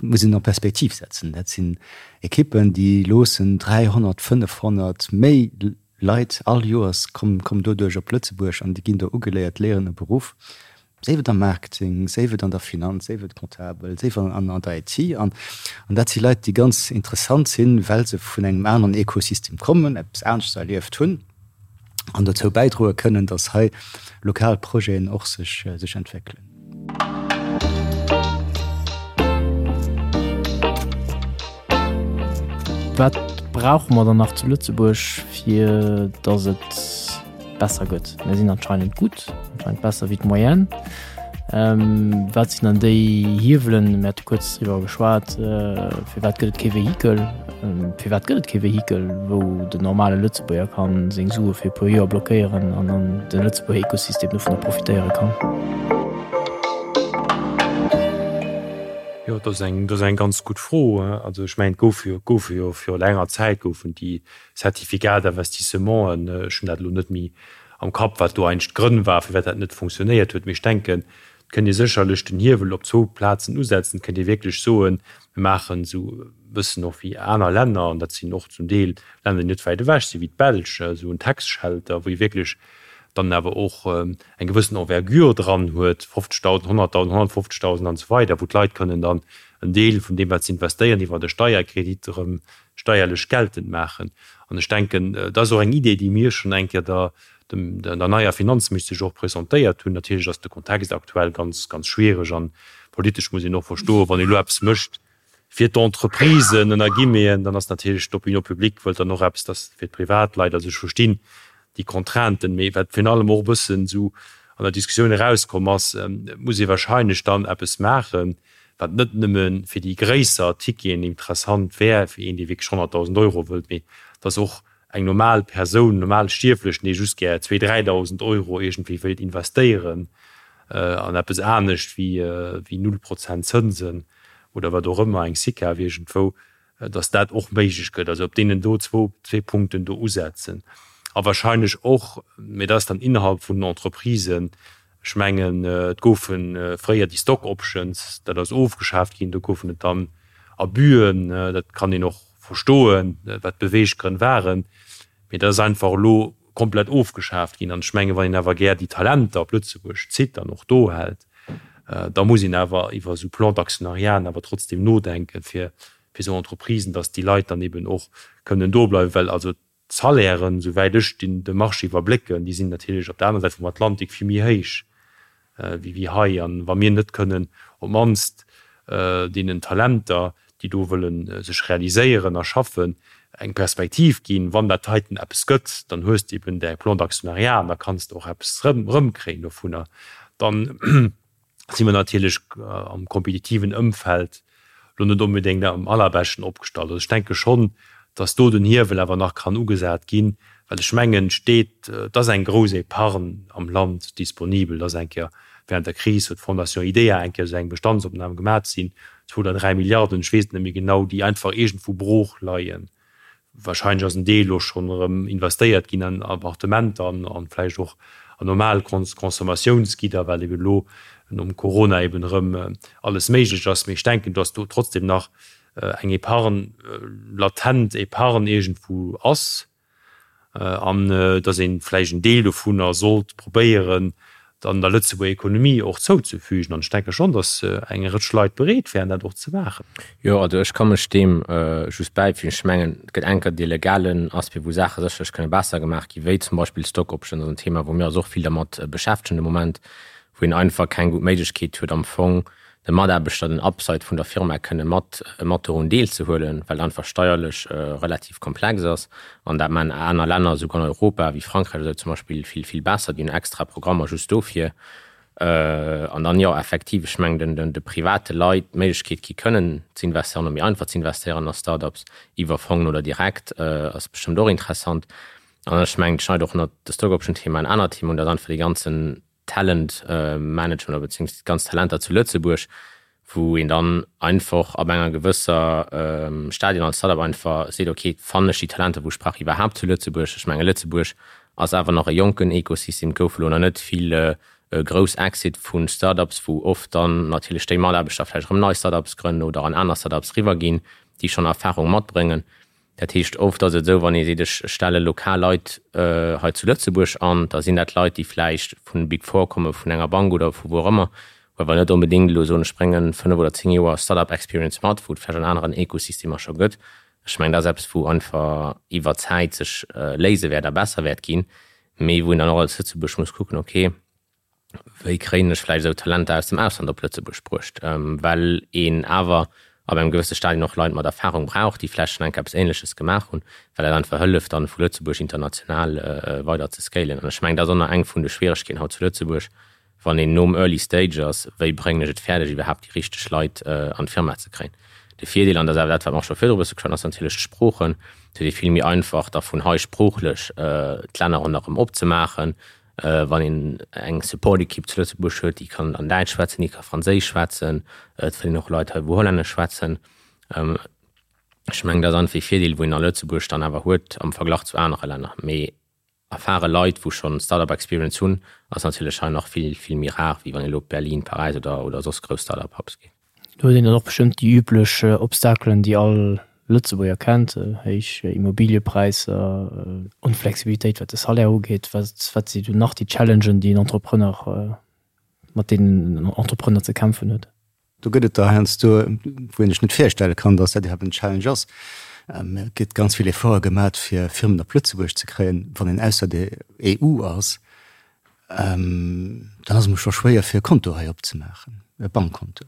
muss een an Perspektiv setzen. Dat sinn Ekippen, déi loossen 300, 500, méi Leit all Joers kommen, kommen doduerch op Lëtzebuerg an déi ginn do ugeléiert, léieren e Beruff, séif et am Marketing, séif et an der Finanz, séif et Comptabel, séif an, an der IT. An, an dat si Leit, déi ganz interessant sinn, well se vun engem aneren Ekosystem kommen, eppes aneschters erlieft hunn an dozou bäidroe kënnen, datt hei lokal Projeten och sech, sech entwéckelen. Wat brauche mer dann nach zu Lëtzebuerg, fir datt et besser gëtt? Mir sinn anscheinend gutt, anscheinend besser wéi d'Moyenne. Wat sinn dann déi Hiewelen? Mir hate kuerz driwwer geschwat, firwat gëtt et kee Vehikel? Firwat gëtt et kee Vehikel, wou den normale Lëtzebuerger ka seng Sue fir e puer Joer blockéieren an dann de Lëtzebuerger Ekosystem dovunner profitéiere kann? Jo, dat ass eng, dat ass eng ganz gutt Fro. Also ech mengen, et goufe jo, et goufe jo viru längerer Zäit goufen déi Certificats d'investissementen, ech hunn dat elo net méi am Kapp, wat do eigentlech d'Grënn war, firwat dat net funktionéiert huet, mee ech denken, Et kënnt ee sécherlech den Hiewel op zwou Plazen usetzen. Et kënnt ee wierklech soen, mir maachen esou e bëssen och wéi aner Länner, an dat sinn och zum Deel Länner, déi net wäit ewech sinn, wéi d'Belsch, esou en Tax Shelter, wou ee wierklech dann awer och eng gewëssen Envergure dran huet, 50.000, 100.000, 150.000 an esou weider, wou d'Leit kënnen dann en Deel vun deem, wat se investéieren, iwwer e Steierkredit erëm steierlech geltend maachen. An ech denken, dat ass och eng Idee, déi mir schonn eng Kéier der der neier Finanzministesch och presentéiert hunn. Natierlech ass de Kontext aktuell ganz, ganz schwiereg an politesch muss een och verstoen, wann ee elo eppes mécht fir d'Entreprisen, ënner Guillemeten, dann ass natierlech d'Opinion publique wëllt dann och eppes, dass fir d'Privatleit, also ech verstinn déi Contrainten, mee wat virun allem och e bëssen esou an der Diskussioun erauskomm ass, et muss ee wahrscheinlech dann eppes maachen, wat net nëmme fir déi gréisser Ticketen interessant wär, fir een, dee wierklech 100.000 Euro wëllt, mee dass och eng normal Persoun, normal Stierflechen, dee just gär zwee, 3.000 Euro iergendwéi wéilt investéieren an eppes anescht wéi null Prozent Zënsen oder wat och ëmmer, eng SICAV iergendwou, datt dat och méiglech gëtt. Also op deenen do zwou, zwee Punkten do usetzen. A wahrscheinlech och, mee dat ass dann innerhalb vun den Entreprisen, ech mengen, et goufe fréier déi Stock Options, dat ass ofgeschaaft ginn, do goufen et dann Abüen, dat kann een och verstoen, wat d'Beweeggrënn waren, mee dat ass einfach elo komplett ofgeschaaft ginn. An ech mengen, wann een awer gär déi Talenter op Lëtzebuerg zitt an och do hält, da muss een awer iwwer esou Plans d'actionnariaten awer trotzdem nodenken, fir esou Entreprisen, dass déi Leit dann eben och kënnen do bleiwen, well also D'Salairen, souwäit ech de Marché iwwerblécken, déi sinn natierlech op der aner Säit vum Atlantik vill méi héich wéi hei. An wa mir net kënnen op d'mannst deenen Talenter, déi do wëlle sech realiséieren a schaffen, eng Perspektiv ginn, wann dat heiten eppes gëtt, dann hues de eben däi Plan d'actionnariat an da kanns de och eppes erëmkréien dovunner, dann si mer natierlech am kompetitiven Ëmfeld lo net onbedéngt am allerbeschten opgestallt. Also ech denke schonn, datt do den Hiewel awer nach kann ugesat ginn, well ech mengen, et steet, et ass eng grouss Épargne am Land disponibel. Et ass eng Kéier während der Kris huet d'Fondation IDEA eng Kéier esou eng Bestandsopnam gemaach, et sinn zwou oder dräi Milliarden, ech weess et net méi genau, déi einfach iergendwou brooch leien. Wahrscheinlech ass en Deel elo schonn erëm investéiert ginn an Appartementer an vläicht och an normal Consommatiounsgidder, well eben elo nom Corona eben erëm alles méiglech ass. Mee ech denken, dass do trotzdem nach eng Épargne, latent Épargne iergendwou ass an dass ee vläicht en Deel dovunner sollt probéieren, dann der Lëtzebuerger Ekonomie och zouzefügen. An ech denke schonn, datt eng Rëtsch Leit bereet wären, dat och ze maachen. Jo, also ech ka mech deem just bäifügen. Ech mengen, et gëtt enker dee legalen Aspect, wou Saache sécherlech kënne besser gemaach ginn, wéi zum Beispill Stock Options ass en Thema, wou mir eis och vill dermat beschäftegen de Moment, wou een einfach keng gutt Méiglechkeet huet am Fong, de Mataarbechter den Upside vun der Firma kënne mat mat dorun deelzehuelen, well et einfach steierlech relativ komplex ass. An dat maachen aner Länner, esouguer an Europa, wéi Frankräich oder esou zum Beispill, vill, vill besser. Déi hunn extra Programmer just dofir. An dann, jo, effektiv, ech mengen, den de private Leit d'Méiglechkeet gi kënnen ze investéieren oder méi einfach ze investéieren a Start-ups iwwer Fongen oder direkt, ass bestëmmt och interessant. An ech mengen, et schneit och ënnert de Stock-Option-Thema en anert Thema un, dat ass einfach dee ganzen Talent Management oder beziehungsweise déi ganz Talenter zu Lëtzebuerg, Wou een dann einfach ab enger gewësser Stadien als Startup einfach seet, ok, fannen ech déi Talenter, wou ech brauch, iwwerhaapt zu Lëtzebuerg? Ech menge Lëtzebuerg ass awer nach e jonken Ekosystem, et goufe lo nach net vill grouss Exit vu Startups, wou oft dann natierlech déi Mataarbechter vläicht erëm nei Startups grënnen oder an aner Startups riwwerginn, déi schonn Erfahrung matbréngen. Dat heescht, oft ass et esou, wann ee seet, ech stelle lokal Leit hei zu Lëtzebuerg an, da sinn dat Leit, déi vläicht vun Big Four komme, vun enger Bank oder vu wou och ëmmer, wou awer net onbedéngt elo soen, ech brénge 5 oder 10 Joer Start-up Experience mat, wou et vläicht an aneren Ekosystemer scho gëtt. Ech mengen, dat ass eppes, wou einfach iwwer d'Zäit sech léise wäert a besser wäert ginn, mee wou een dann och als Lëtzebuerg muss kucken, okay, wéi kréien ech vläicht esou Talenter aus dem Ausland op Lëtzebuerg bruecht, well een awer ab engem gewësse Stadion och Leit mat Erfahrung brauch, déi vläicht schonn eng Kéier eppes Ähnleches gemaach hunn, well dat einfach hëlleft dann vu Lëtzebuerg international weider ze scalen. An ech mengen, dat ass och nach eng vun de Schwieregkeeten haut zu Lëtzebuerg, wann een nom Early Stage ass, wéi bréngen ech et fäerdeg iwwerhaapt déi richteg Leit an d'Firma ze kréien. De Virdeel, an dat ass awer dat wat mer och scho virdru e bësse geschwat hunn, ass natierlech d'Sproochen. Et huet ee vill méi einfach da vun hei sproochlech d'Länner ronderëm opzemaachen, Wann een eng Support-Ekipp zu Lëtzebuerg huet, déi kann dann Däitsch schwätzen, déi ka Franséisch schwätzen, et fënnt een och Leit hei, wou Hollännesch schwätzen. Ech mengen, dat ass einfach ee Virdeel, wou een a Lëtzebuerg dann awer huet am Verglach zu anere Länner. Mee erfare Leit, wou schonn Start-up-Experience hunn, ass natierlech hei nach vill, vill méi rar, wéi wann een elo op Berlin, Paräis oder, oder soss grouss Start-up-Hubs geet. Do huet een dann och bestëmmt déi üblech Obstakelen, déi all Lëtzebuerger kennt, héich Immobiliëpräisser, Onflexibilitéit wat de Salaire ugeet. Wat wat si do nach déi Challengen, déi en Entrepreneur, mat deenen en Entrepreneur ze kämpfen huet? Do gëtt et der heiansdo, wou een sech net virstelle kann, datt dat iwwerhaapt en Challenge ass. Et gëtt ganz vill Efforte gemat, fir Firmen op Lëtzebuerg ze kréien. Wann een ausser der EU ass, Dann ass et mol scho schwéier fir e Konto hei opzemaachen, e Bankkonto.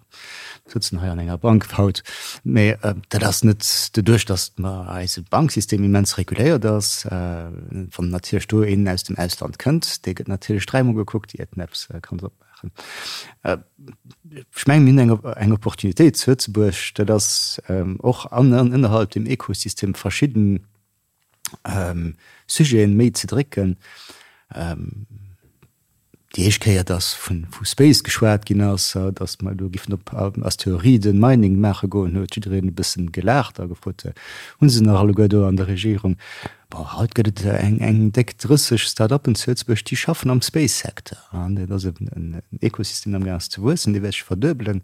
Mir sëtzen hei an enger Bank haut, mä dat ass net doduerch, datt mer eise Banksystem immens reguléiert ass. Wann natierlech do een aus dem Ausland kënnt, dee gëtt natierlech dräimol gekuckt, iert en eppes kann opmaachen. Ech mengen, mir hunn eng Opportunitéit zu Lëtzebuerg, dat ass och ënnerhalb dem Ekosystem verschidden Sujeten méi ze drécken. Déi éischt Kéier, datt vu Space geschwat ginn ass, datt mer elo giffen op Asteroiden Mining maache goen, huet jiddereen e bëssen gelaacht a gefrot, Hu se nach alleguer do an der Regierung? Bon, haut gëtt et eng déck 30 Start-uppen zu Lëtzebuerg, déi schaffen am Space-Secteur. An dat ass en Ekosystem, deen amgaang ass ze wuessen, dee wäert sech verduebelen.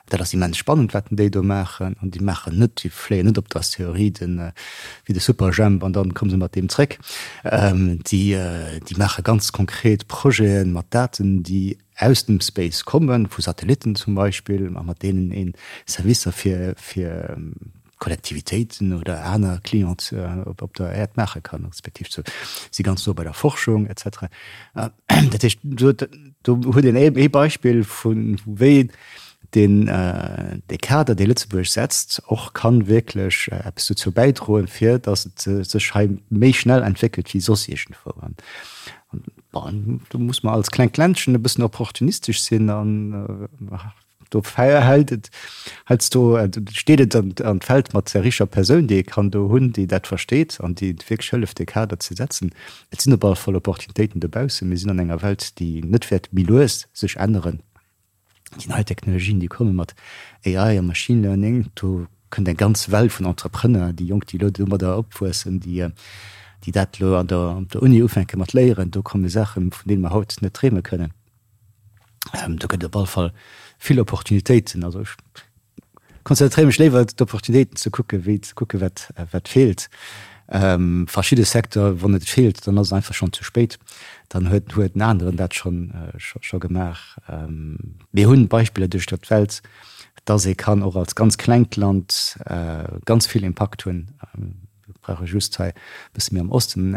Dat ass immens spannend, wat déi do maachen. An déi maachen net, déi fléien net op d'Asteroiden wéi de Superjhemp an dann komme se mat deem zréck. Déi, déi maache ganz konkret Projete mat Daten, déi aus dem Space kommen, vu Satellitten zum Beispill, a mat deenen ee Servicer fir, fir Kollektivitéiten oder aner Clients op der Äerd maache kann, respektiv zu si ganz no bei der Forschung et cetera. Dat heescht, do do huet een ee Beispill vu wéi deen dee Kader, dee Lëtzebuerg setzt, och kann wierklech eppes dozou bäidroen, fir datt et sech hei méi schnell entwéckelt wéi soss iergendwou. An bon, do muss mer als klengt Ländchen e bëssen opportunistesch sinn an Do hält et heiansdo, steet et an d'Feld mat der richer Persoun, déi ee kann do hunn, déi dat versteet an déi wierklech hëlleft, dee Kader ze setzen. Et sinn op alle Fall Opportunitéiten dobaussen. Mir sinn an enger Welt, déi net wäert méi lues sech änneren. Déi nei Technologien, déi komme mat AI a Machine Learning, do kënnt eng ganz Well vun Entrepreneur, déi Jonk, déi elo domadder opwuessen, déi dat elo an der Uni ufänke mat léieren. Do komme Saachen, vun deene mer haut net dreeme kënnen. Do gëtt et op alle Fall vill Opportunitéiten. Also ech konzentréiere mech léiwer d'Opportunitéiten ze kucken, wéi ze kucken, wat, wat feelt. Verschidde Secteur, wann et feelt, dann ass et einfach schonn ze spéit. Dann huet, huet en aneren dat schonn, scho gemaach. Mir hunn Beispiller duerch der d'Welt, dass ee kann och als ganz klengt Land ganz vill Impakt hunn. Mir brauche just hei e bësse méi am Osten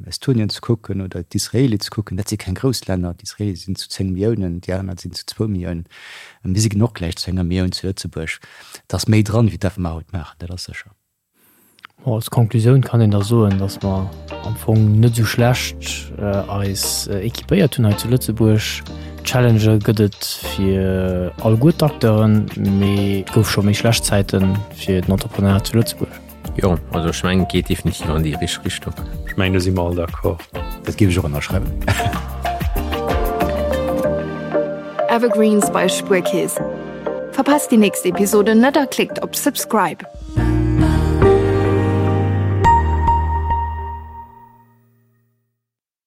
Estonien ze kucken oder d'Israeli ze kucken. Dat si keng grouss Länner. D'Israeli sinn zu 10 Milliounen, déi aner sinn zu zwou Milliounen. Mir si och gläich zu enger Millioun zu Lëtzebuerg. Et ass méi dran, wéi dat, wat mer haut maachen, dat ass sécher. Bon, als Konklusioun kann een da soen, datt mer am Fong net esou schlecht eis équipéiert hunn hei zu Lëtzebuerg. Challengë gëtt et fir alleguer d'Acteuren, mee et gouf scho méi schlecht Zäite fir den Entrepreneuriat zu Lëtzebuerg. Jo, also ech mengen et geet definitiv an déi richteg Richtung. Ech mengen do si mer all d'accord. Dat géif ech och ënnerschreiwen. Evergreens bei Spuerkeess. Verpasst déi nächst Episode net a klickt op Subscribe.